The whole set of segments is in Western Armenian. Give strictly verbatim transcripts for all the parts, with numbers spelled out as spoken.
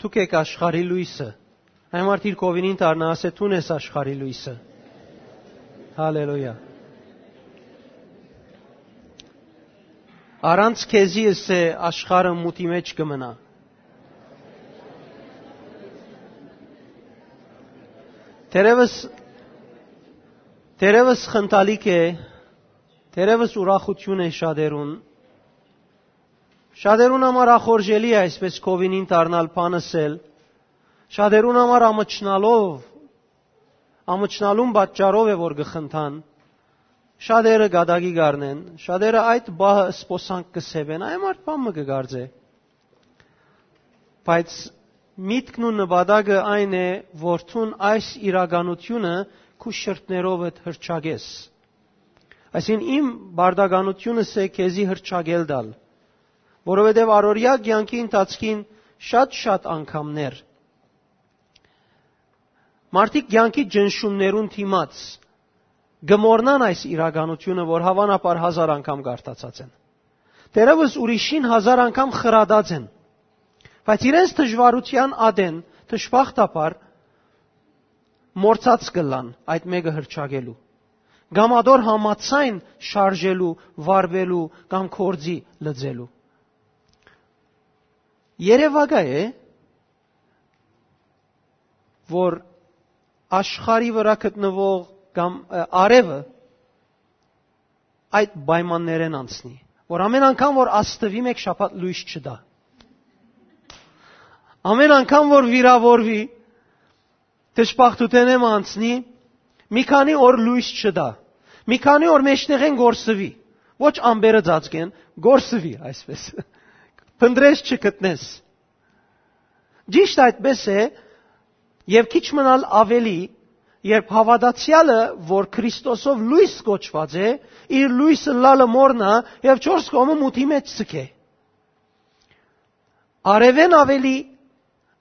Դուք էք աշխարհի լոյսը։ Այն մարդ իր կովինին դառնայ, ասէ. «Դուն ես աշխարհի լոյսը»։ Հալելույա։ «Առանց քեզի», ըսէ, «աշխարհը մութի մէջ կը մնայ»։ Թերեւս, թերեւս խնդալիք է, թերեւս ուրախութիւն է շատերուն։ Շատերուն համար ախորժելի է այսպէս կովինին դառնալ, բան ըսել։ Շատերուն համար ամչնալով, ամչնալուն պատճառով է, որ կը խնդան։ Շատերը կատակի կ'առնեն, շատերը այդ պահը սպոսանք կը սեւեն, այն մարդ բան մը կը կարծէ։ Բայց միտքն ու նպատակը այն է, որ դուն այս իրականությունը քու շրթներովդ հրճակես։ Այսինքն, իմ պարտականությունս է քեզի հրճակել տալ, որովհետեւ առօրեայ կեանքի ընթացքին շատ-շատ անգամներ մարդիկ կեանքի ճնշումներուն դիմաց կը մոռնան այս իրականությունը, որ հաւանաբար հազար անգամ կարդացած են։ Թերեւս ուրիշին հազար անգամ խրատած են, բայց իրենց դժուարութեան ատեն, դժբախտաբար, մոռցած կ'ըլլան այդ մէկը հրճակելու, կամ ատոր համաձայն շարժելու, վարուելու կամ գործի լծելու։ Երեւակայ է, որ աշխարհի վրայ գտնուող կամ, ը, արեւը այդ պայմաններէն անցնի, որ ամէն անգամ որ աստուի, մէկ շաբաթ լոյս չտայ։ Ամէն անգամ որ վիրաւորուի, դժբախտութենէն մը անցնի, մի քանի օր լոյս չտայ, մի քանի օր մէջտեղէն կորսուի, ոչ ամպերը ծածկեն, կորսուի այսպէս, փնտռես չգտնես։ Ճիշդ այդպէս է, եւ քիչ մնալ աւելի, երբ հաւատացեալը, որ Քրիստոսով լոյս կոչուած է, իր լոյս ըլլալը մոռնայ եւ չորս կողմը մութի մէջ ձգէ։ Արեւէն աւելի,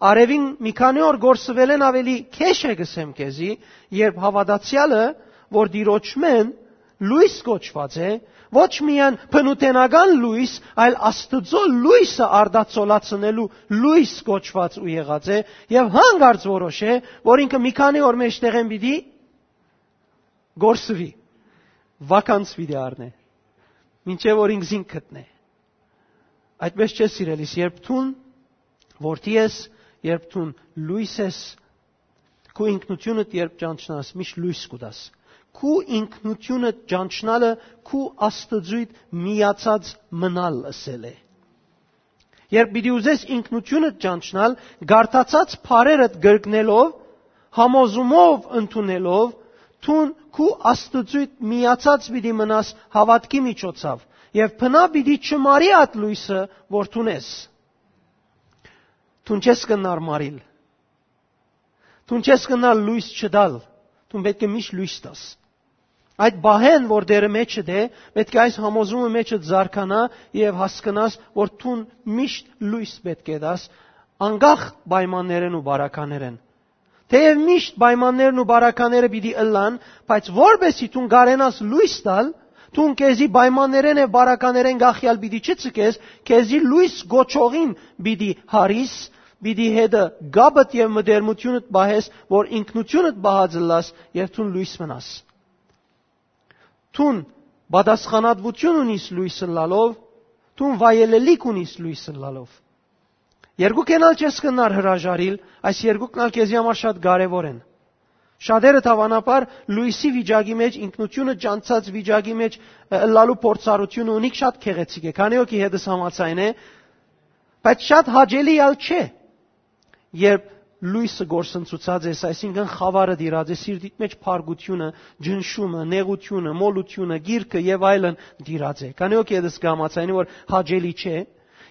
արեւին մի քանի օր կորսուելէն աւելի քեշ է, կ'ըսեմ քեզի, երբ հաւատացեալը, որ Տիրոջմէն լոյս կոչուած է, ոչ միայն բնութենական լոյս, այլ Աստուծոյ լոյսը արտացոլացնելու լոյս կոչուած ու եղած է, եւ հանկարծ որոշ է, որ ինքը մի քանի օր մէջտեղէն պիտի կորսուի, վականս պիտի առնէ, մինչեւ որ ինքզինք գտնէ։ Այդպէս չէ, սիրելիս, երբ դուն որդի ես, երբ դուն լոյս ես, քու ինքնութիւնդ երբ ճանչնաս, միշտ լոյս կու տաս։ Քու ինքնութիւնդ ճանչնալը քու Աստուծոյդ միացած մնալ ըսել է։ Երբ պիտի ուզես ինքնութիւնդ ճանչնալ, կարդացած բառերդ կրկնելով, համոզումով ընդունելով, դուն քու Աստուծոյդ միացած պիտի մնաս հաւատքի միջոցով, եւ բնա պիտի չմարի այդ լոյսը, որ դուն ես։ Դուն չես կրնար մարիլ։ Դուն չես կրնար լոյս չտալ։ Դուն պէտք է միշտ լոյս տաս։ Այդ պահէն, որ Տէրը մէջդ է, պէտք է այս համոզումը մէջդ զարգանայ եւ հասկնաս, որ դուն միշտ լոյս պէտք է տաս, անկախ պայմաններէն ու բարականերէն։ Թէեւ միշտ պայմաններն ու բարակաները պիտի ըլլան, բայց որպէսզի դուն կարենաս լոյս տալ, դուն քեզի պայմաններէն եւ բարականերէն կախեալ պիտի չցկես, քեզի լոյս կոչողին պիտի հարիս, պիտի հետը կապդ եւ մտերմութիւնդ պահես, որ ինքնութիւնդ պահած ըլլաս եւ դուն լոյս մնաս։ Դուն պատասխանատվութիւն ունիս լոյս ըլլալով, դուն վայելելիք ունիս լոյս ըլլալով։ Երկուքէն ալ չես կրնար հրաժարիլ, այս երկուքն ալ քեզի համար շատ կարեւոր են։ Շատերը, դաւանաբար, լոյսի վիճակի մէջ, ինքնութիւնը ճանչցած վիճակի մէջ, ը, ըլլալու փորձառութիւնը ունիք շատ գեղեցիկ է, քանի հոգի հետս համաձայն է, բայց շատ հաճելի ալ չէ, երբ լոյսը կորսնցուցած ես, այսինքն խաւարը տիրած է, սիրտիդ մէջ փառկութիւնը, ճնշումը, նեղութիւնը, մոլութիւնը, գիրքը եւ այլն տիրած է։ Քանի հոգի հետս կհամաձայնի, որ հաճելի չէ։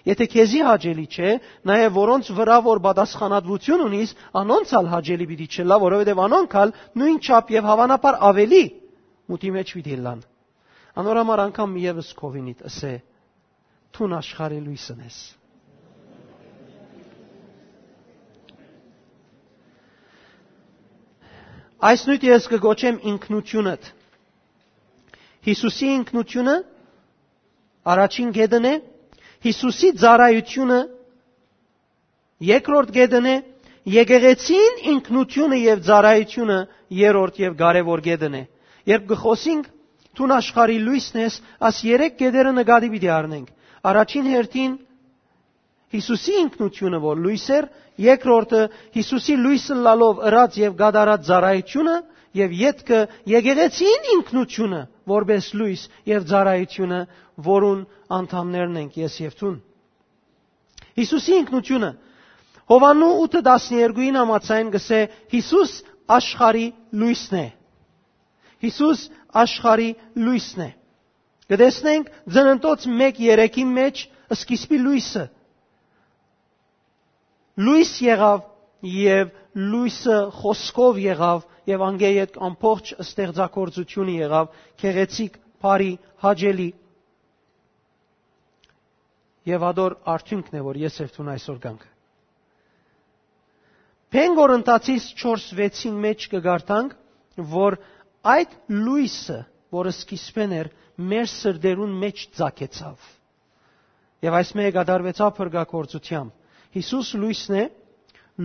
Եթէ քեզի հաճելի չէ, նաեւ որոնց վրայ որ պատասխանատվութիւն ունիս, անոնց ալ հաճելի պիտի չըլլայ, որովհետեւ անոնք ալ նոյնչափ եւ հաւանաբար աւելի մութի մէջ պիտի ըլլան։ Անոր համար անգամ եւս քովինիդ ըսէ. «Դուն աշխարհի լոյսն ես»։ Այս նոյթը ես կը կոչեմ ինքնութիւնդ։ Յիսուսի ինքնութիւնը առաջին կետն է, Յիսուսի ծառայութիւնը Երկրորդ կետն է, եկեղեցին ինքնութիւնը եւ ծառայութիւնը երրորդ եւ կարեւոր կետն է։ Երբ կը խօսինք, դուն աշխարհի լոյսն ես, աս երեք կետերը նկատի պիտի առնենք։ Առաջին հերթին, Յիսուսի ինքնութիւնը, որ լոյս էր, երկրորդը՝ Յիսուսի լոյս ըլլալով ըրած եւ կատարած ծառայութիւնը, եւ ետքը՝ եկեղեցին ինքնութիւնը, որպէս լոյս եւ ծառայութիւնը, որուն անդամներն ենք ես եւ դուն։ Յիսուսի ինքնութիւնը։ Յովհաննու ութը տասներկուին համաձայն կ'ըսէ. «Յիսուս աշխարհի լոյսն է»։ Յիսուս աշխարհի լոյսն է։ Կը տեսնենք Ծննդոց մէկ երեքի մէջ սկիզբի լոյսը։ Լոյս եղաւ, եւ լոյսը խօսքով եղաւ, եւ անկէ ետք ամբողջ ստեղծագործութիւնը եղաւ գեղեցիկ, բարի, հաճելի։ Եւ ատոր արդիւնքն է, որ ես եւ դուն այսօր կանք։ Բնկորինթացիս չորս վեցին մէջ կը կարդանք, որ այդ լոյսը, որ սկիզբէն էր, մեր սրտերուն մէջ ծագեցաւ։ Եւ այս մէկը կատարուեցաւ փրկագործութեամբ։ Յիսուս լոյսն է,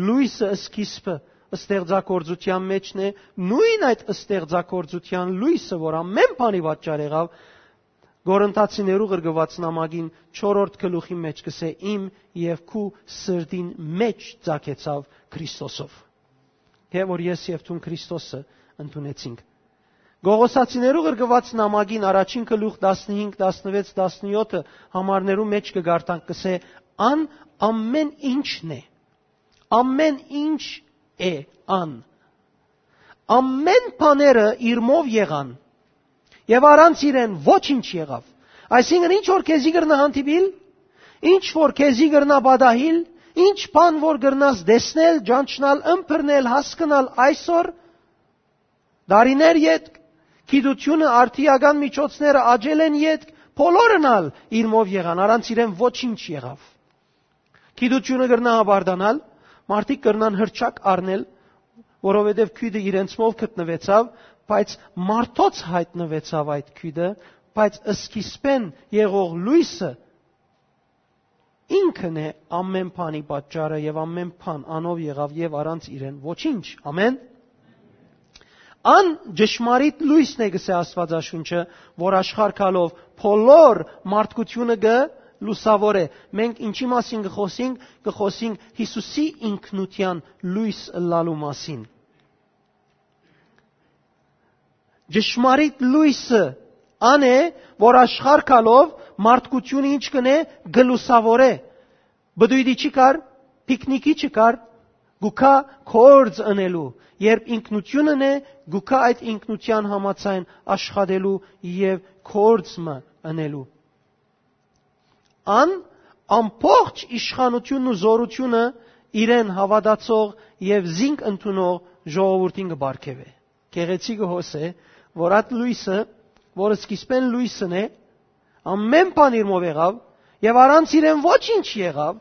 լոյսը սկիզբը ստեղծագործութեան մէջն է, նոյն այդ ստեղծագործութեան լոյսը, որ ամէն բանի պատճառ եղաւ, Կորինթացիներու ղրկուած նամակին չորրորդ գլուխի մէջ կ'ըսէ. «Իմ եւ քու սրտին մէջ ծագեցաւ Քրիստոսով»։ Հե որ ես եւ դուն Քրիստոսը ընդունեցինք։ Կողոսացիներու ղրկուած նամակին առաջին գլուխ տասնհինգ, տասնվեց, տասնեօթը համարներու մէջ կը կարդանք, կ'ըսէ. «Ան ամէն ինչն է»։ Ամէն ինչ է ան։ Ամէն բաները իրմով եղան, եւ առանց իրեն ոչինչ եղաւ։ Այսինքն, ինչ որ քեզի կրնայ հանդիպիլ, ինչ որ քեզի կրնայ պատահիլ, ինչ բան որ կրնաս տեսնել, ճանչնալ, ըմբռնել, հասկնալ այսօր, տարիներ ետք, գիտությունը, արդիական միջոցները աճելէն ետք, բոլորն ալ իրմով եղան, առանց իրեն ոչինչ եղաւ։ Գիտությունը կրնայ հպարտանալ, մարդիկ կրնան հրճակ առնել, որովհետեւ գիւտը իրենցմով գտնուեցաւ, բայց մարդոց յայտնուեցաւ այդ գիւտը, բայց սկիզբէն եղող լոյսը ինքն է ամէն բանի պատճառը, եւ ամէն բան անով եղաւ, եւ առանց իրեն ոչինչ։ Ամէն։ Ան ճշմարիտ լոյսն է, կ'ըսէ Աստուածաշունչը, որ աշխարհ գալով բոլոր մարդկութիւնը կը լուսաւորէ։ Մենք ինչի՞ մասին կը խօսենք, կը խօսենք Յիսուսի ինքնութեան լոյս ըլլալու մասին։ Ճշմարիտ լոյսը ան է, որ աշխարհ գալով մարդկութիւնը ինչ կ'ընէ, կը լուսաւորէ։ Բդոյտի չի կար, պիքնիքի չի կար, կու գայ գործ ընելու, երբ ինքնութիւնն է, կու գայ այդ ինքնութեան համաձայն աշխատելու եւ գործ մը ընելու։ Ան ամբողջ իշխանութիւնն ու զօրութիւնը իրեն հաւատացող եւ զինք ընդունող ժողովուրդին կը պարգեւէ։ Գեղեցիկը հոս է, որ այդ լոյսը, որ սկիզբէն լոյսն է, ամէն բան իրմով եղաւ, եւ առանց իրեն ոչինչ եղաւ,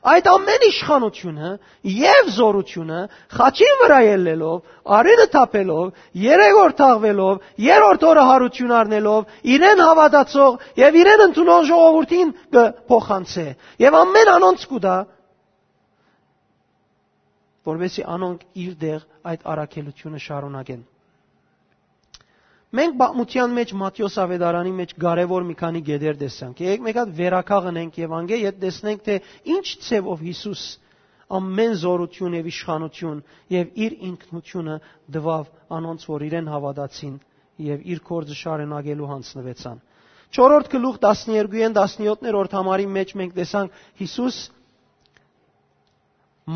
այդ ամէն իշխանութիւնը եւ զօրութիւնը խաչին վրայ ելլելով, արիւնը թափելով, երեւորթաղուելով, երրորդ օրը յարութիւն առնելով, իրեն հաւատացող եւ իրեն ընդունող ժողովուրդին կը փոխանցէ։ Եւ ամէն անոնց կու տայ, որպեսզի անոնք իր դեղ այդ առաքելութիւնը շարունակեն։ Մենք պատմութեան մէջ, Մատթէոս աւետարանի մէջ կարեւոր մի քանի կետեր տեսանք։ Եկեք մէկ հատ վերականգնենք եւ անկէ յետ տեսնենք, թէ ինչ ձեւով Յիսուս ամէն զօրութիւն եւ իշխանութիւն եւ իր ինքնութիւնը տուաւ անոնց, որ իրեն հաւատացին եւ իր գործը շարունակելու յանձնուեցան։ Չորրորդ գլուխ տասներկուին տասնեօթերորդ համարի մէջ մենք տեսանք Յիսուս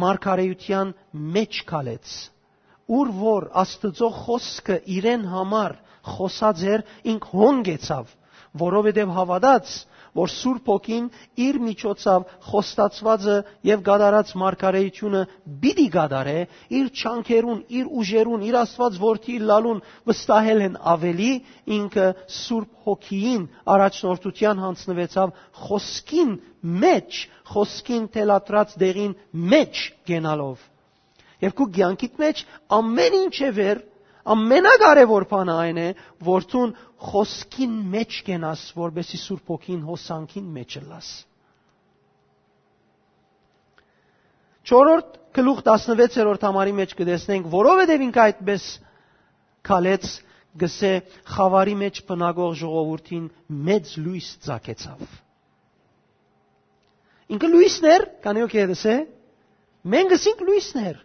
մարգարէութեան մէջ քալեց, ուր որ Աստուծոյ խօսքը իրեն համար խօսած էր, ինք հոն գեցաւ, որովհետեւ հաւատաց, որ Սուրբ Հոգին իր միջոցաւ խոստացուածը եւ կատարած մարգարէութիւնը պիտի կատարէ, իր չանքերուն, իր ուժերուն, իր Աստուած որդի ըլլալուն վստահելէն աւելի, ինքը Սուրբ Հոգիին առաջնորդութեան յանձնուեցաւ խօսքին մէջ, խօսքին թելադրած տեղին մէջ կենալով։ Եւ քու կեանքիդ մէջ ամէն ինչ է վեր, ամենակարեւոր բանը այն է, որ դուն խօսքին մէջ կենաս, որպեսզի Սուրբ Հոգին հոսանքին մէջ ըլլաս։ Չորրորդ գլուխ տասնվեցերորդ համարի մէջ կը տեսնենք, որովհետեւ ինք այդպես քալեց, կսէ, խաւարի մէջ բնակող ժողովուրդին մեծ լոյս ծագեցաւ։ Ինքը լոյսն էր, քանի որ կերտս է, մենք ըսինք լոյսն էր։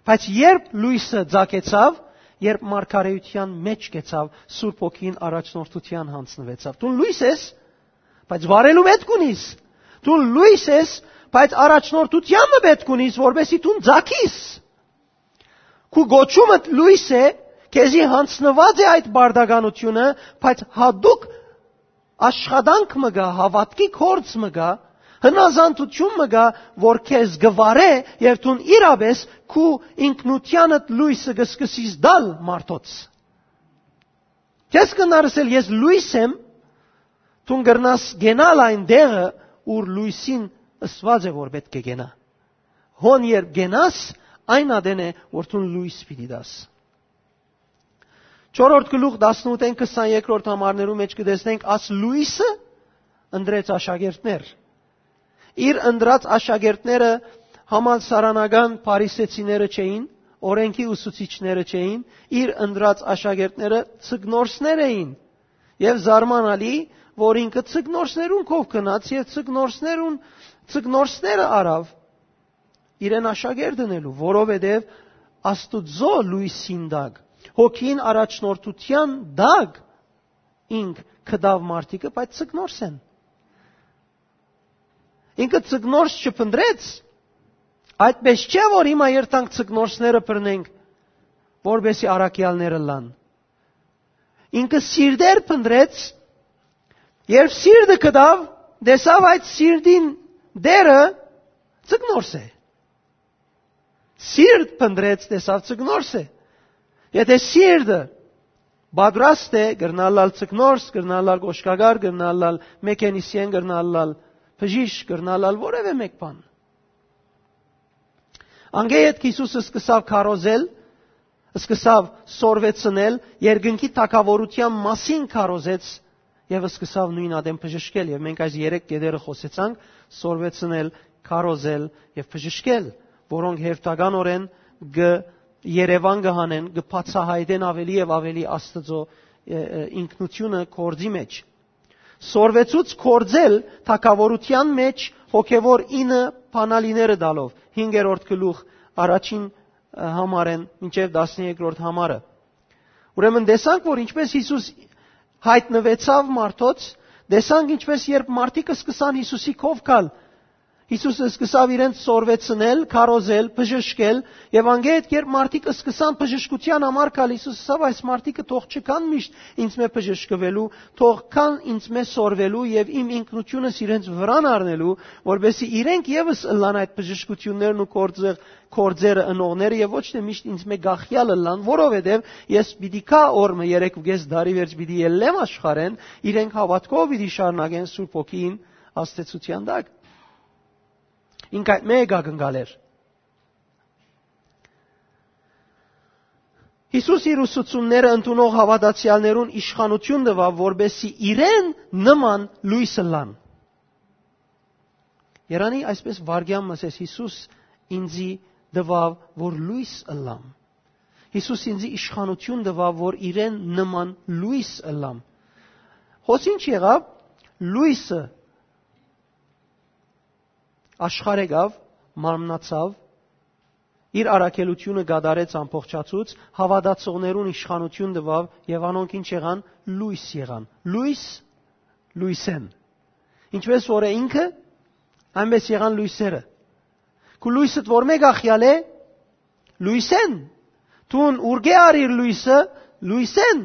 Բայց երբ լոյսը ծագեցաւ, երբ մարգարեության մէջ կեցաւ, Սուրբ Հոգին առաջնորդության յանձնուեցաւ։ Դուն լոյս ես, բայց վարելու պէտք ունիս։ Դուն լոյս ես, բայց առաջնորդության մը պէտք ունիս, որպեսզի դուն ծագիս։ Քու կոչումդ լոյս է, քեզի յանձնուած է այդ պարտականությունը, բայց յատուկ աշխատանք մը կայ, հաւատքի գործ մը կայ, հնազանդութիւն մը կայ, որ քեզ կը վարէ եւ դուն իրապէս քու ինքնութեանդ լոյսը կը սկսես տալ մարդոց։ Քեզ կրնար ըսել, «Ես լոյս եմ», դուն կրնաս կենալ այն տեղը, ուր լոյսին ըսուած է, որ պէտք է կենայ։ Հոն երբ կենաս, այն ատեն է, որ դուն լոյս պիտի տաս։ Չորրորդ գլուխ տասնութ են քսանեքրորդ համարներու մէջ կը տեսնենք, աս լոյսը ընտրեց աշակերտներ։ Իր ընտրած աշակերտները համալսարանական փարիսեցիները չէին, օրենքի ուսուցիչները չէին, իր ընտրած աշակերտները ձկնորսներ էին։ Եւ զարմանալի, որ ինքը ձկնորսներուն քով գնաց եւ ձկնորսներուն, ձկնորսները առաւ իրեն աշակերտ ընելու, որովհետեւ Աստուծոյ լոյսին տակ, հոգին առաջնորդության տակ ինք գտաւ մարդիկը, բայց ձկնորս են։ Ինքը ձկնորս չփնտրեց, այդպես չէ, որ հիմա երթանք ձկնորսները բռնենք, որպեսզի առաքեալները լան։ Ինքը սիրտեր փնտրեց, երբ սիրտը գտաւ, տեսաւ այդ սիրտին դերը ձկնորս է։ Սիրտ փնտրեց, տեսաւ ձկնորս է։ Եթե սիրտը պատրաստ է, կրնալ ալ ձկնորս, կրնալ ալ կոշկակար, կրնալ ալ մեքենիսիեն, կրնալ ալ բժիշկ, կրնալ ալ որևէ մէկ բան։ Անկէ ետք Յիսուսը սկսաւ քարոզել, սկսաւ սորվեցնել, երկնքի թագաւորութեան մասին քարոզեց եւ սկսաւ նոյն ատեն բժշկել։ Եւ մենք այս երեք կետերը խօսեցանք՝ սորվեցնել, քարոզել եւ բժշկել, որոնք հերթականօրէն կը երեւան կը հանեն, կը բացայայտեն աւելի եւ աւելի Աստուծոյ, ը, ը, ինքնութիւնը գործի մէջ։ Սորվեցուց գործել թագաւորութեան մէջ հոգեւոր ինը բանալիները տալով, հինգերորդ գլուխ առաջին, ը, համարէն մինչեւ տասներկրորդ համարը։ Ուրեմն տեսանք, որ ինչպես Յիսուս յայտնուեցաւ մարդոց, տեսանք ինչպես երբ մարդիկ սկսան Յիսուսի քով գալ, Յիսուսը սկսաւ իրենց սորվեցնել, քարոզել, բժշկել, եւ անգետ երբ մարդիկ սկսան բժշկության համար գալ, Յիսուս ասաւ, «Այս մարդիկը թող չգան միշտ ինձ մէ բժշկվելու, թող գան ինձ մէ սորվելու եւ իմ ինքնությունս իրենց վրան առնելու, որպեսզի իրենք եւս ըլլան այդ բժշկություններն ու գործը, գործերը ընողները եւ ոչ թե միշտ ինձ մէ գախյալ ըլլան, որովհետեւ ես պիտի գայ օր մը, երեքուկես տարի վերջ պիտի ելլեմ աշխարհէն, իրենք հաւատքով պիտի շարունակեն Սուրբ Հոգին ազդեցության տակ»։ Ինք այդ մէ եկակնկալ էր։ Յիսուս իր ուսուցումները ընդունող հաւատացեալներուն իշխանութիւն տուաւ, որպեսզի իրեն նման լոյս ըլլան։ Երանի այսպես վարգեան մը ասես, «Յիսուս ինձի տուաւ, որ լոյս ըլլամ»։ Յիսուս ինձի իշխանութիւն տուաւ, որ իրեն նման լոյս ըլլամ։ Հոս ինչ եղաւ, լոյսը աշխարհ եկաւ, մարմնացաւ, իր առաքելությունը կատարեց ամբողջացուց, հաւատացողներուն իշխանութիւն տուաւ եւ անոնք ինչ եղան, լոյս եղան, լոյս, լոյսեն։ Ինչպես որ է ինքը, այնպես եղան լոյսերը։ Քու լոյսդ որ մէ գախյալ է, լոյսեն։ Դուն ուրկէ առիր լոյսը, լոյսեն։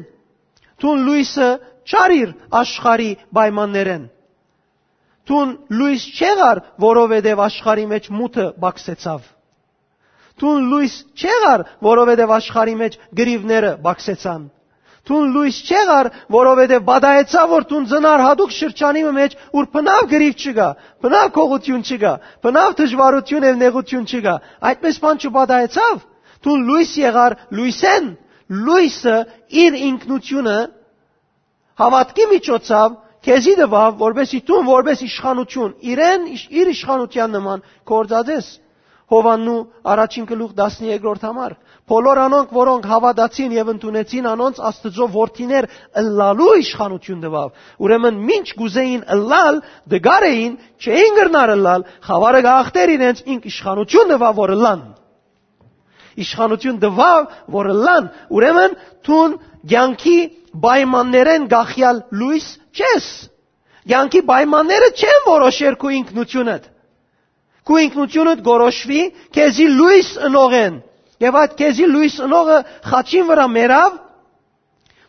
Դուն լոյսը չարիր աշխարհի պայմաններեն։ Դուն լոյս չեղար, որովհետեւ աշխարհի մէջ մութը բացեցաւ։ Դուն լոյս չեղար, որովհետեւ աշխարհի մէջ գրիվները բացեցան։ Դուն լոյս չեղար, որովհետեւ պատահեցաւ, որ դուն ծնար յատուկ շրջանի մը մէջ, ուր բնաւ գրիվ չկայ, բնաւ գողութիւն չկայ, բնաւ դժուարութիւն եւ նեղութիւն չկայ։ Այդպես բան չպատահեցաւ։ Դուն լոյս եղար լոյսեն, լոյսը իր ինքնութիւնը հաւատքի միջոցաւ քեզի տուաւ, որպեսզի դուն, որպես իշխանութիւն, իրեն, իր իշխանութեան նման գործածես։ Յովհաննու առաջին գլուխ տասներկրորդ համար։ Բոլոր անոնք, որոնք հաւատացին եւ ընդունեցին անոնց, Աստուծոյ որդիներ ըլլալու իշխանութիւն տուաւ։ Ուրեմն մինչ կ'ուզէին ըլլալ, դգար էին, չէին կրնար ըլլալ, խաւարը կ'ախտէր իրենց, ինք իշխանութիւն տուաւ, որ ըլլան։ Իշխանութիւն տուաւ, որ ըլլան։ Ուրեմն դուն կեանքի պայմաններէն կախեալ լոյս չես։ Կեանքի պայմանները չեն որոշեր քու ինքնութիւնդ։ Քու ինքնութիւնդ կորոշուի քեզի լոյս ընողէն։ Եւ այդ քեզի լոյս ընողը խաչին վրայ մեռաւ,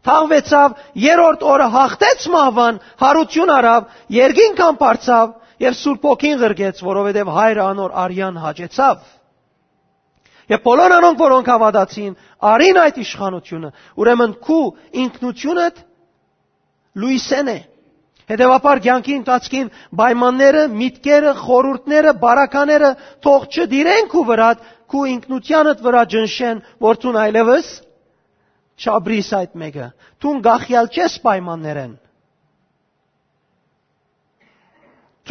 թաղուեցաւ, երրորդ օրը հաղթեց մահուան, յարութիւն առաւ, երկինք ամբարձաւ եւ Սուրբ Հոգին ղրկեց, որովհետեւ Հայրը անոր արեան հաճեցաւ։ Եւ բոլոր անոնք, որոնք հաւատացին, առին այդ իշխանութիւնը։ Ուրեմն քու ինքնութիւնդ լոյսէն է։ Հետեւաբար կեանքի ընթացքին պայմանները, միտքերը, խորհուրդները, բարակաները թող չդիրեն քու վրադ, քու ինքնութեանդ վրայ ճնշեն, որ դուն այլեւս չապրիս այդ մէկը։ Դուն կախեալ չես պայմաններէն։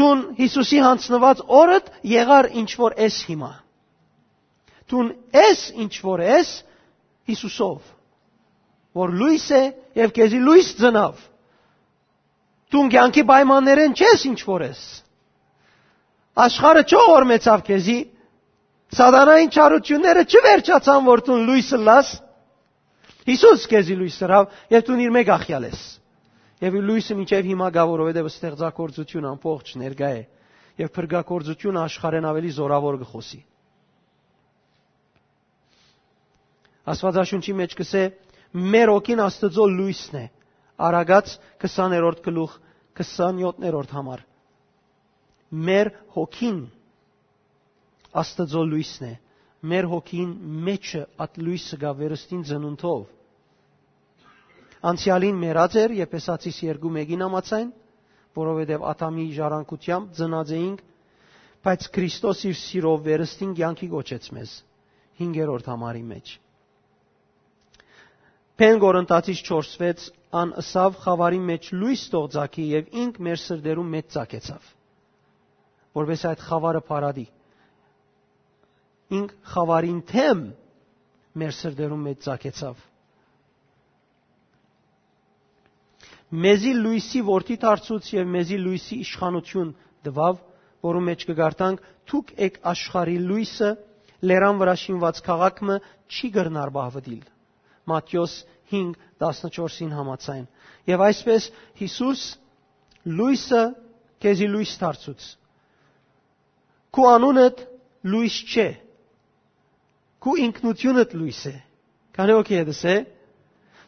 Դուն Յիսուսի յանձնուած օրդ եղար ինչ որ ես հիմա։ Դուն ես ինչ որ ես Յիսուսով, որ լոյս է եւ քեզի լոյս ծնաւ։ Դուն կեանքի պայմաններէն չես ինչ որ ես։ Աշխարհը չողորմեցաւ քեզի, սատանային չարությունները չվերջացան, որ դուն լոյս ըլլաս։ Յիսուս քեզի լոյս ըրաւ եւ դուն իր մէկ ախեալ ես։ Եւ իր լոյսը մինչեւ հիմա կայ, որովհետեւ ստեղծագործությունը ամբողջ ներկայ է, եւ փրկագործությունը աշխարհէն աւելի զօրաւոր կը խօսի։ Աստուածաշունչի մէջ կ'ըսէ. «Մեր հոգին Աստուծոյ լոյսն է»։ Առակաց քսաներորդ գլուխ, քսանյոթերորդ համար։ Մեր հոգին Աստուծոյ լոյսն է։ Մեր հոգին մէջը այդ լոյսը կայ վերստին ծնունդով։ Անցեալին մեռած էր, Եփեսացիս երկու մէկին համաձայն, որովհետեւ Ադամի ժառանգութեամբ ծնած էինք, բայց Քրիստոս իր սիրով վերստին կեանքի կոչեց մեզ, հինգերորդ համարի մէջ։ Բեն Կորինթացիս չորս վեց, ան ըսաւ. «Խաւարի մէջ լոյս թող ծագի», եւ ինք մեր սրտերուն մէջ ծագեցաւ, որպէս այդ խաւարը փարատի։ Ինք խաւարին դէմ մեր սրտերուն մէջ ծագեցաւ։ Մեզի լոյսի որդի դարձուց եւ մեզի լոյսի իշխանութիւն տուաւ, որու մէջ կը կարդանք. «Դուք էք աշխարհի լոյսը, լերան վրայ շինուած քաղաք մը չի կրնար պահուտիլ»։ Մատթէոս հինգ, տասնչորսին համաձայն։ Եւ այսպես Յիսուս լոյսը քեզի լոյս դարձուց։ Քու անունդ լոյս չէ, քու ինքնութիւնդ լոյս է։ Քանի օքի հետս է,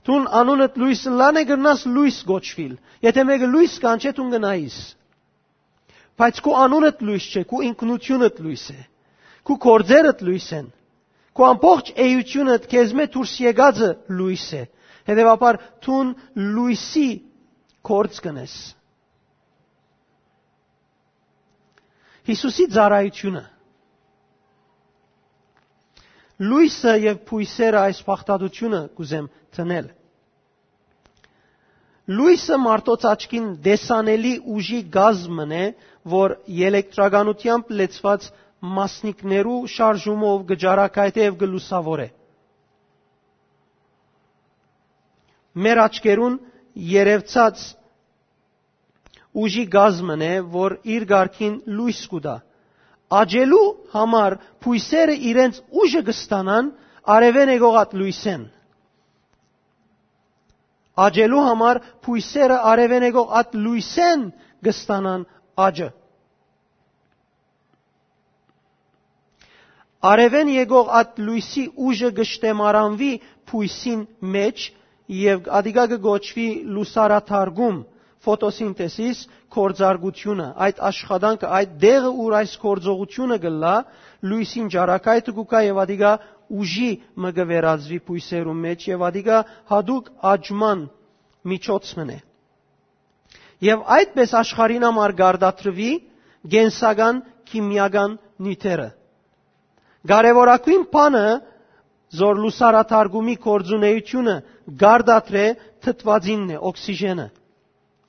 դուն անունդ լոյս ըլլան է, կրնաս լոյս կոչուիլ։ Եթե մէկը լոյս կանչէ, դուն կնայիս։ Բայց քու անունդ լոյս չէ, քու ինքնութիւնդ լոյս է, քու գործերդ լոյս են, քու ամբողջ էութիւնդ քեզմէ դուրս եկածը լոյս է։ Հետեւաբար դուն լոյսի գործ կ'ընես։ Յիսուսի ծառայութիւնը։ Լոյսը եւ բոյսերը այս բաղդատութիւնը կ'ուզեմ դնել։ Լոյսը մարդոց աչքին տեսանելի ուժի կազմ մըն է, որ ելեկտրականութեամբ լեցուած մասնիկներու շարժումով կը ճառագայթէ եւ կը լուսաւորէ։ Մեր աչքերուն երեւցած ուժի կազմ մըն է, որ իր կարգին լոյս կու տայ։ Աճելու համար բոյսերը իրենց ուժը կը ստանան արեւէն եկող այդ լոյսէն։ Աճելու համար բոյսերը արեւէն եկող այդ լոյսէն կը ստանան աճը։ Արեւէն եկող այդ լոյսի ուժը կը շտեմարանուի բոյսին մէջ եւ ատիկա կը կոչուի լուսարաթարգում, ֆոտոսինթեզիս, գործարկութիւնը, այդ աշխատանքը, այդ տեղը, ուր այս գործողութիւնը կ'ըլլայ, լոյսին ճառագայթը կու գայ եւ ատիկա ուժի մը կը վերածուի բոյսերուն մէջ եւ ատիկա յատուկ աճման միջոց մըն է։ Եւ այդպես աշխարհին համար կարտադրուի կենսական քիմիական նիւթերը։ Կարեւորագոյն բանը, զոր լուսարաթարգումի գործունեութիւնը կարտադրէ, թթուածինն է, օքսիժենը։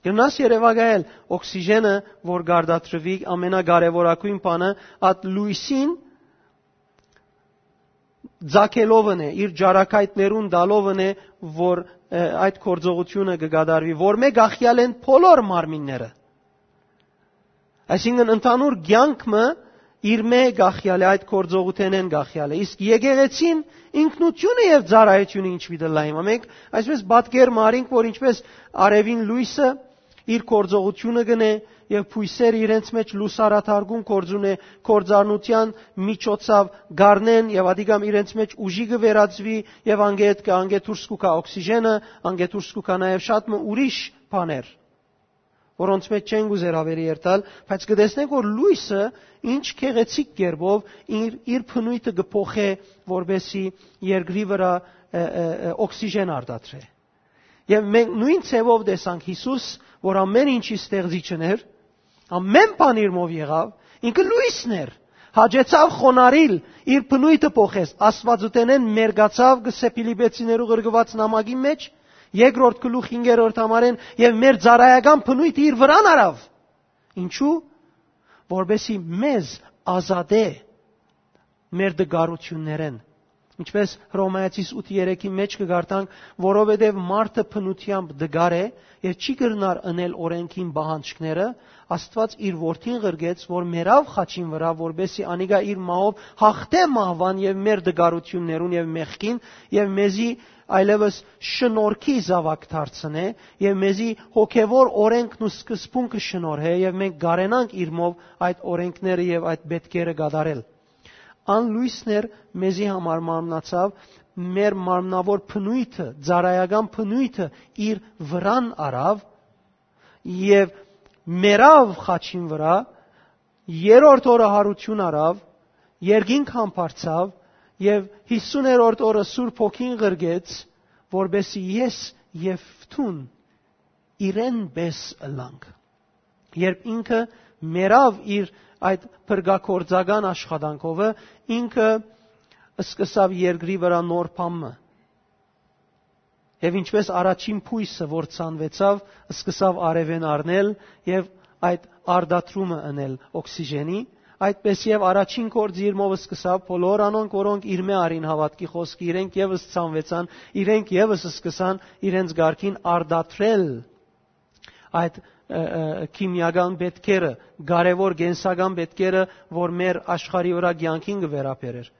Կրնաս երեւակայել օքսիժենը, որ կարտադրուի, ամենակարեւորագոյն բանը, այդ լոյսին ձագելով ընէ, իր ճարակայտներուն տալով ընէ, որ, ը, այդ գործողութիւնը կը կատարուի, որ մէ կախեալ են բոլոր մարմինները։ Այսինքն ընդհանուր կեանք մը իր մէ կախեալ է, այդ գործողութենէն կախեալ է։ Իսկ եկեղեցին ինքնութիւնը եւ ծառայութիւնը ինչ պիտի լայ։ Հիմա մենք այսպես պատկեր մը առինք, որ ինչպես արեւին լոյսը իր գործողութիւնը կ'ընէ եւ բոյսերը իրենց մէջ լուսարաթարգում գործ ունէ, գործառնութեան միջոցաւ կ'առնեն եւ ադիկամ իրենց մէջ ուժի կը վերածուի եւ անգետ կը, անգետ դուրս կու գայ օքսիժենը, անգետ դուրս կու գայ նաեւ շատ մը ուրիշ բաներ, որոնց մէջ չենք ուզեր աւելի երթալ, բայց կը տեսնենք, որ լոյսը ինչ գեղեցիկ կերպով իր, իր բնոյթը կը փոխէ, որպեսզի երկրի վրայ, ը, ը, ը, օքսիժեն արտադրէ։ Եւ մենք նոյն ձեւով տեսանք Յիսուս, որ ամէն ինչի ստեղծիչն էր, ամէն բան իրմով եղաւ, ինքը լոյսն էր, հաճեցաւ խոնարհիլ, իր բնոյթը փոխեց, Աստուածութենէն մերկացաւ, կը սե Փիլիպեցիներու ղրկուած նամակի մէջ, երկրորդ գլուխ հինգերորդ համարէն, եւ մեր ծառայական բնոյթը իր վրան առաւ։ Ինչու՞։ Որպեսզի մեզ ազատէ մեր տկարութիւններէն։ Ինչպես Հռոմայացիս ութ երեքի մէջ կը կարդանք, որովհետև մարդը բնութեամբ տկար է եւ չի կրնար ընել օրէնքին պահանջքները, Աստուած իր որդին ղրկեց, որ մեռաւ խաչին վրայ, որպեսզի անիկա իր մահով հաղթէ մահուան եւ մեր տկարութիւններուն եւ մեղքին, եւ մեզի այլեւս շնորհքի զաւակ դարձնէ, եւ մեզի հոգեվոր օրէնքն ու սկզբունքը շնորհէ, եւ մենք կարենանք իրմով այդ օրէնքները եւ այդ պետքերը կատարել։ Ան լոյսն էր, մեզի համար մարմնացաւ, մեր մարմնաւոր բնոյթը, ծառայական բնոյթը իր վրան առաւ եւ մեռաւ խաչին վրայ, երրորդ օրը յարութիւն առաւ, երկինք համբարձաւ եւ հիսուներորդ օրը Սուրբ Հոգին ղրկեց, որպեսզի ես եւ դուն իրեն պէս ըլլանք։ Երբ ինքը մեռաւ իր այդ փրկագործական աշխատանքովը, ինքը սկսաւ երկրի վրայ նոր բան մը։ Եւ ինչպես առաջին բոյսը, որ ցանուեցաւ, սկսաւ արեւէն առնել եւ այդ արտադրումը ընել օքսիժենի, այդպես եւ առաջին գործը իրմով սկսաւ բոլոր անոնք, որոնք իրմէ առին հաւատքի խօսքը, իրենք եւս ցանուեցան, իրենք եւս սկսան իրենց կարգին արտադրել այդ, ը, ը, քիմիական պետքերը, կարեւոր կենսական պետքերը, որ մեր աշխարհի վրայ կեանքին կը վերաբերէր։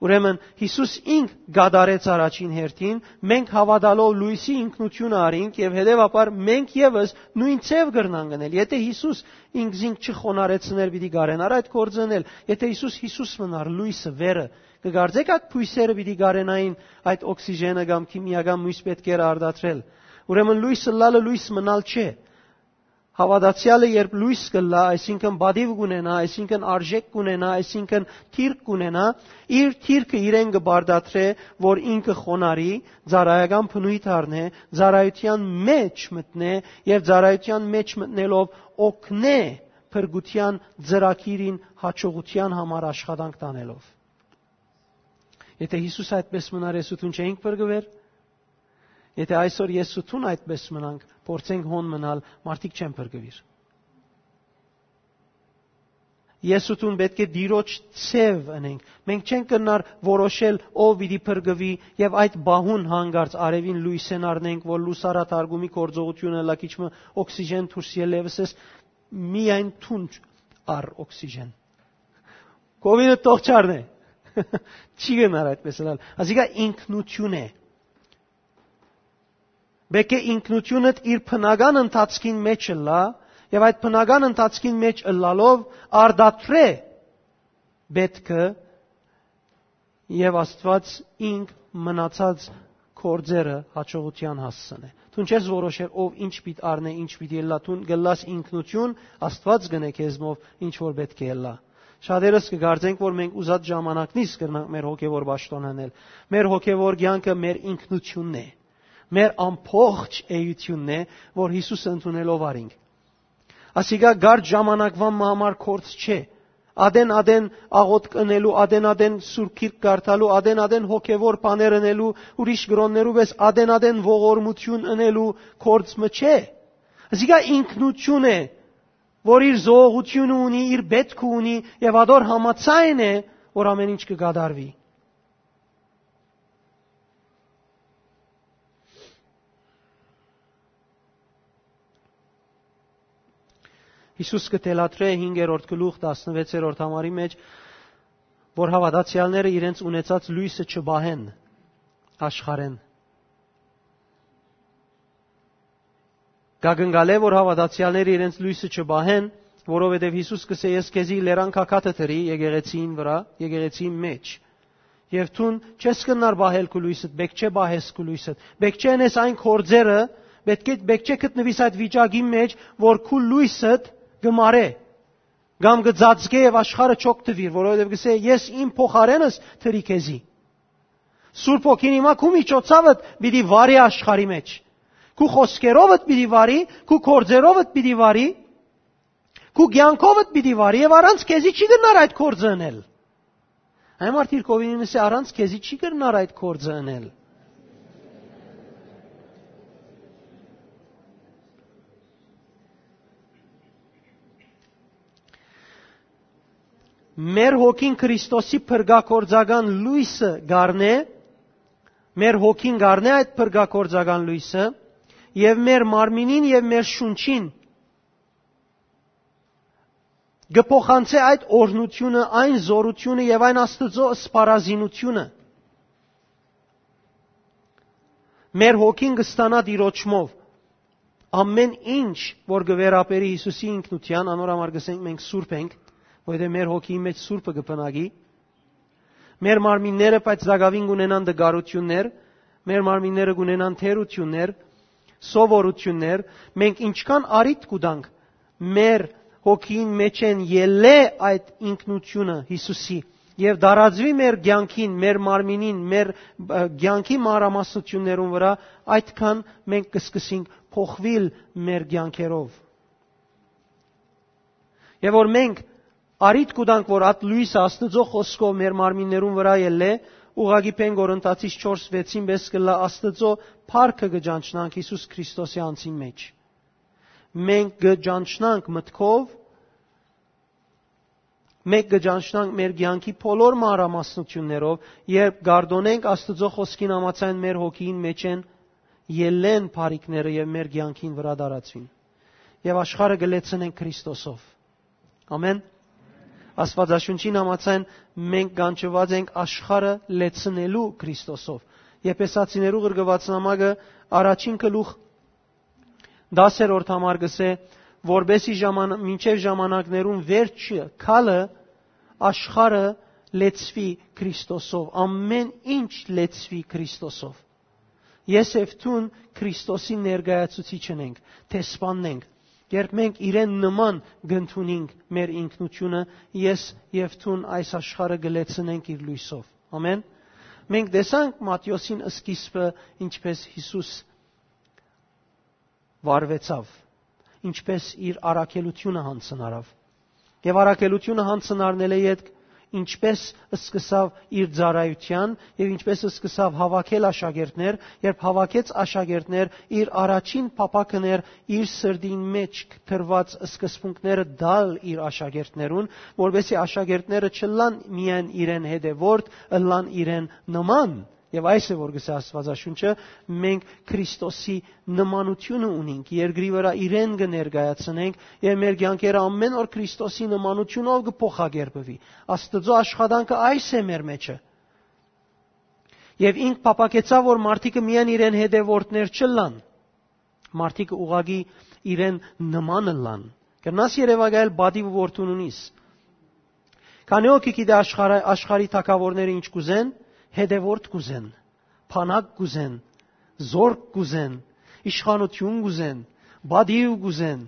Ուրեմն Յիսուս ինք կատարեց առաջին հերթին, մենք հաւատալով լոյսի ինքնութիւնը առինք եւ հետեւաբար մենք եւս նոյն ձեւ կրնանք ընել։ Եթէ Յիսուս ինքզինք չխոնարհեցներ, պիտի կարենար այդ գործը ընել։ Եթէ Յիսուս Յիսուս մնար, լոյսը, վերը, կը կարծէք այդ բոյսերը պիտի կարենային այդ օքսիժենը կամ քիմիական մոյս պետքերը արտադրել։ Ուրեմն լոյս ըլլալը լոյս մնալ չէ։ Հաւատացեալը երբ լոյս կ'ըլլայ, այսինքն պատիւ կ'ունենայ, այսինքն արժէք կ'ունենայ, այսինքն դիրք կ'ունենայ, իր դիրքը իրեն կը պարտադրէ, որ ինքը խոնարհի, ծառայական բնոյթ առնէ, ծառայութեան մէջ մտնէ եւ ծառայութեան մէջ մտնելով օգնէ փրկութեան ծրագիրին հաջողութեան համար աշխատանք տանելով։ Եթէ Յիսուս այդպես մնար, ես ու դուն չէինք փրկուեր։ Եթէ այսօր ես ու դուն այդպես մնանք, փորձենք հոն մնալ, մարդիկ չեն փրկուիր։ Ես ու դուն պէտք է Տիրոջ ձեւ ընենք։ Մենք չենք կրնար որոշել ով պիտի փրկուի եւ այդ պահուն հանկարծ արեւին լոյսէն առնենք, որ լուսարաթարգումի գործողութիւնը լա քիչ մը օքսիժեն դուրս ելլեւս ես, միայն դուն առ օքսիժեն։ Կովիդը թող չառնէ։ Չի գնար այդպես ըլլալ։ Ասիկա ինքնություն է։ Պէտք է ինքնությունդ իր բնական ընթացքին մեջ ըլլայ, եւ այդ բնական ընթացքին մեջ ըլլալով արտադրէ պէտքը, եւ Աստուած ինք մնացած գործերը հաջողութեան հասցնէ։ Դուն չես որոշեր ով ինչ պիտի առնէ, ինչ պիտի ըլլայ, դուն կ'ըլլաս ինքնություն, Աստուած կ'ընէ քեզմով ինչ որ պէտք է ըլլայ։ Շատերս կը կարծենք, որ մենք ուզած ժամանակնից կրնանք մեր հոգեվոր պաշտօն ընել։ Մեր հոգեվոր կեանքը մեր ինքնությունն է, մեր ամբողջ էությունն է, որ Յիսուսը ընդունելով առինք։ Ասիկա կարճ ժամանակուան մը համար գործ չէ։ Ատեն-ատեն աղօթք ընելու, ատեն-ատեն Սուրբ Գիրք կարդալու, ատեն-ատեն հոգեվոր բաներ ընելու, ուրիշ կրոններու պէս ատեն-ատեն ողորմութիւն ընելու գործ մը չէ։ Ասիկա ինքնություն է, որ իր զողողութիւնը ունի, իր պէտքը ունի եւ ատոր համաձայն է, որ ամէն ինչ կը կատարուի։ Յիսուս կը թելադրէ հինգերորդ գլուխ, տասնվեցերորդ համարի մէջ, որ հաւատացեալները իրենց ունեցած լոյսը չպահեն աշխարհէն։ Կակնկալէ որ հաւատացեալները իրենց լոյսը չպահեն, որովհետեւ Յիսուս կ'ըսէ. «Ես քեզի լերան գագաթը դրի եկեղեցին վրայ, եկեղեցին մէջ։ Եւ դուն չես կրնար պահել քու լոյսդ, պէտք չէ պահես քու լոյսդ, պէտք չէ ընես այն գործերը, պէտք է, պէտք չէ գտնուիս այդ վիճակի մէջ, որ քու լոյսդ կը մարէ, կամ կը ծածկէ եւ աշխարհը չօգտուիր, որովհետեւ կ'ըսէ. "Ես իմ փոխարենս դրի քեզի"։ Սուրբ Հոգին հիմա քու միջոցաւդ պիտի վարի աշխարհի մէջ։ Քու խօսքերովդ պիտի վարի, քու գործերովդ պիտի վարի, քու կեանքովդ պիտի վարի եւ առանց քեզի չի կրնար այդ գործը ընել"։ Այն մարդիկ ովին ըսէ. "Առանց քեզի չի կրնար այդ գործը ընել"։ Մեր հոգին Քրիստոսի փրկագործական լոյսը կ'առնէ, մեր հոգին կ'առնէ այդ փրկագործական լոյսը եւ մեր մարմինին եւ մեր շունչին կը փոխանցէ այդ օրհնութիւնը, այն զօրութիւնը եւ այն Աստուծոյ սպառազինութիւնը։ Մեր հոգին կը ստանայ Տիրոջմով։ Ամէն ինչ որ կը վերաբերի Յիսուսի ինքնութեան, անոր համար կ'ըսենք մենք սուրբ ենք, որովհետեւ մեր հոգիի մէջ սուրբը կը բնակի։ Մեր մարմինները, բայց տակաւին կ'ունենան տկարութիւններ, մեր մարմինները կ'ունենան թերութիւններ, սովորութիւններ, մենք ինչքան առիթ կու տանք մեր հոգիին մէջէն ելլէ այդ ինքնութիւնը Յիսուսի եւ տարածուի մեր կեանքին, մեր մարմինին, մեր, ը, կեանքի մանրամասնութիւններուն վրայ, այդքան մենք կը սկսենք փոխուիլ մեր կեանքերով։ Եւ որ մենք առիթ կու տանք, որ այդ լոյսը Աստուծոյ խօսքով մեր մարմիններուն վրայ ելլէ, ուղղակի Պէն Կորինթացիս չորս վեցին պէս կ'ըլլայ Աստուծոյ փառքը կը ճանչնանք Յիսուս Քրիստոսի անձին մէջ։ Մենք կը ճանչնանք մտքով, մենք կը ճանչնանք մեր կեանքի բոլոր մանրամասնութիւններով, երբ կ'արտօնենք Աստուծոյ խօսքին համաձայն մեր հոգիին մէջէն ելլեն բարիքները եւ մեր կեանքին վրայ տարածուին։ Եւ աշխարհը կը լեցնենք Քրիստոսով։ Ամեն։ Աստուածաշունչին համաձայն մենք կանչուած ենք աշխարհը լեցնելու Քրիստոսով։ Եփեսացիներու ղրկուած նամակը առաջին գլուխ, տասերորդ համար կ'ըսէ, որպեսզի ժաման-, մինչեւ ժամանակներուն վերջը քալը աշխարհը լեցուի Քրիստոսով, ամէն ինչ լեցուի Քրիստոսով։ Ես եւ դուն Քրիստոսի ներկայացուցիչն ենք, դեսպանն ենք։ Երբ մենք իրեն նման կ'ընդունենք մեր ինքնութիւնը, ես եւ դուն այս աշխարհը կը լեցնենք իր լոյսով։ Ամեն։ Մենք տեսանք Մատթէոսին սկիզբը, ինչպես Յիսուս վարուեցաւ, ինչպես իր առաքելութիւնը յանձնարաւ։ Եւ առաքելութիւնը յանձնարնելէ ետք ինչպես սկսաւ իր ծառայութեան եւ ինչպես սկսաւ հաւաքել աշակերտներ, երբ հաւաքեց աշակերտներ, իր առաջին փափաքն էր իր սրտին մէջ դրուած սկզբունքները տալ իր աշակերտներուն, որպեսզի աշակերտները չըլլան միայն իրեն հետեւորդ, ըլլան իրեն նման։ Եւ այս է, որ կ'ըսէ Աստուածաշունչը, մենք Քրիստոսի նմանութիւնը ունենք, երկրի վրայ իրեն կը ներկայացնենք եւ մեր կեանքերը ամէն օր Քրիստոսի նմանութիւնով կը փոխակերպուի։ Աստուծոյ աշխատանքը այս է մեր մէջը։ Եւ ինք փափաքեցաւ, որ մարդիկը միայն իրեն հետեւորդներ չըլլան, մարդիկը ուղղակի իրեն նման ըլլան։ Կրնաս երեւակայել պատիվ որդուն ունիս։ Քանի՞ հոգի գիտէ աշխարհը, աշխարհի թագաւորները ինչ կ'ուզեն, հետեւորդ կ'ուզեն, բանակ կ'ուզեն, զորք կ'ուզեն, իշխանութիւն կ'ուզեն, պատիւ կ'ուզեն,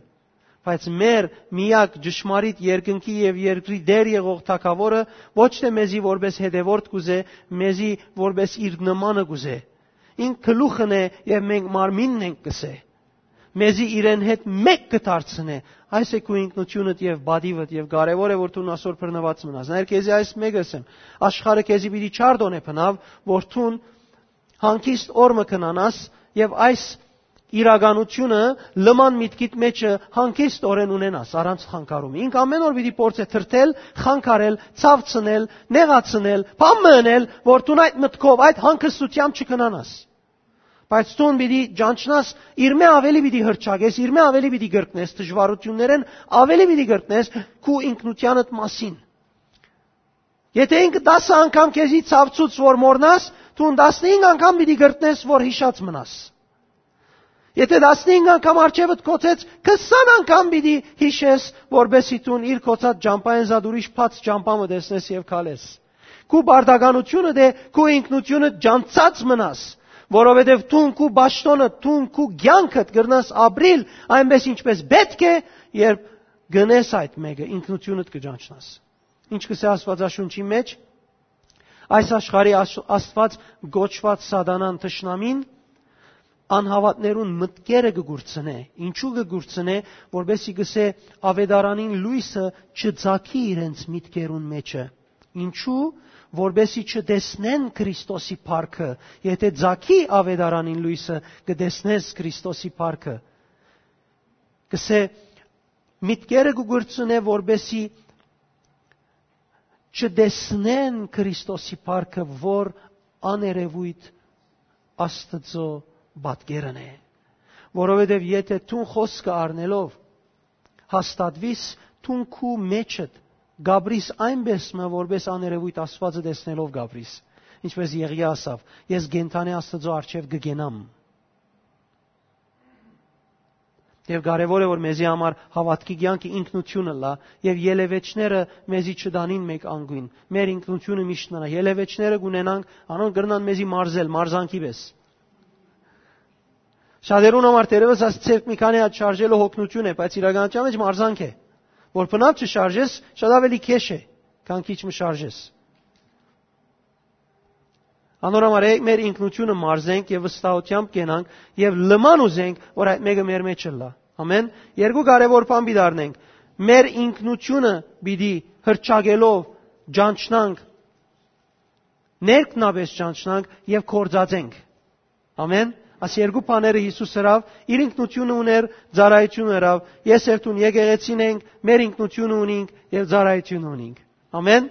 բայց մեր միակ ճշմարիտ երկնքի եւ երկրի տեր եղող թագաւորը ոչ թէ մեզի որպես հետեւորդ կ'ուզէ, մեզի որպես իր նմանը կ'ուզէ։ Ինք գլուխն է եւ մենք մարմինն ենք, կ'ըսէ։ Մեզի իրեն հետ մէկ կը դարձնէ։ Այս է քու ինքնութիւնդ եւ պատիվդ, եւ կարեւոր է, որ դուն ասոր բռնուած մնաս։ Նայր, քեզի այս մէկը ըսեմ. աշխարհը քեզի պիտի չարտօնէ բնաւ, որ դուն հանգիստ օր մը քնանաս եւ այս իրականությունը լման միտքիդ մեջը հանգիստ օրեն ունենաս, առանց խանգարում։ Ինք ամեն օր պիտի փորձէ թրթել, խանգարել, ցավցնել, նեղացնել, բան մը ընել, որ դուն այդ մտքով, այդ հանգստությամբ չքնանաս։ Բայց դուն պիտի ճանչնաս, իրմէ աւելի պիտի հրճակես, իրմէ աւելի պիտի կրկնես, դժուարութիւններէն աւելի պիտի կրկնես քու ինքնութեանդ մասին։ Եթէ ինքը տասը անգամ քեզի ցաւցուց որ մոռնաս, դուն տասնհինգ անգամ պիտի կրկնես որ յիշած մնաս։ Եթէ տասնհինգ անգամ արջեւդ կոչեց, քսան անգամ պիտի յիշես, որպէսզի դուն իր կոչած ճամբայէն զատ ուրիշ բաց ճամբայ մը տեսնես եւ քալես։ Քու պարտականութիւնդ է, քու ինքնութիւնդ ճանչցած մնաս, որովհետեւ դուն քու պաշտոնը, դուն քու կեանքդ կրնաս ապրիլ այնպէս ինչպէս պէտք է, երբ գնես այդ մէկը, ինքնութիւնդ կը ճանչնաս։ Ինչ կ'ըսէ Աստուածաշունչի մէջ։ Այս աշխարհի աշ-, Աստուած կոչուած Սատանան, թշնամին, անհաւատներուն մտքերը կը կուրցնէ։ Ինչու կը կուրցնէ, որպէսզի կ'ըսէ, աւետարանին լոյսը չծագի իրենց մտքերուն մեջը։ Ինչու, որպէսզի չտեսնեն Քրիստոսի փառքը։ Եթէ ծագի աւետարանին լոյսը, կը տեսնես Քրիստոսի փառքը։ Կ'ըսէ, մտքերը կը կուրցնէ, որպէսզի չտեսնեն Քրիստոսի փառքը, որ աներևոյթ Աստուծոյ պատկերն է։ Որովհետեւ եթէ դուն խօսքը առնելով հաստատուիս, դուն քու մեջդ կ'ապրիս այնպէս մը, որպէս աներևոյթ Աստուածը տեսնելով կ'ապրիս, ինչպէս Եղիա ասաւ. «Ես կենդանի Աստուծոյ առջեւ կը կենամ»։ Եւ կարեւոր է, որ մեզի համար հաւատքի կեանքը ինքնութիւնը լա, եւ ելեւէջները մեզի չտանին մէկ անգուն։ Մեր ինքնութիւնը միշտ մնայ։ Ելեւէջները կ'ունենանք, անոնք կրնան մեզի մարզել, մարզանքի պէս։ Շատերուն համար թերեւս այս ձեռք մի քանի հատ շարժելը հոգնութիւն է, բայց իրականության մէջ մարզանք է, որ բնաւ չշարժես, շատ աւելի քեշ է, քան քիչ մը շարժես։ Անոր համար եկեք մեր ինքնութիւնը մարզենք եւ վստահութեամբ կենանք եւ լման ուզենք, որ այդ մէկը մեր մեջ ըլլայ։ Ամեն։ Երկու կարեւոր բան պիտի առնենք։ Մեր ինքնութիւնը պիտի հրճակելով ճանչնանք, ներքնաբես ճանչնանք եւ գործածենք։ Ամեն։ Այս երկու բաները Յիսուս ըրաւ, իր ինքնութիւնը ունէր, ծառայութիւնը ըրաւ, ես երթուն եկեղեցին ենք, մեր ինքնութիւնը ունինք եւ ծառայութիւնը ունինք։ Ամեն։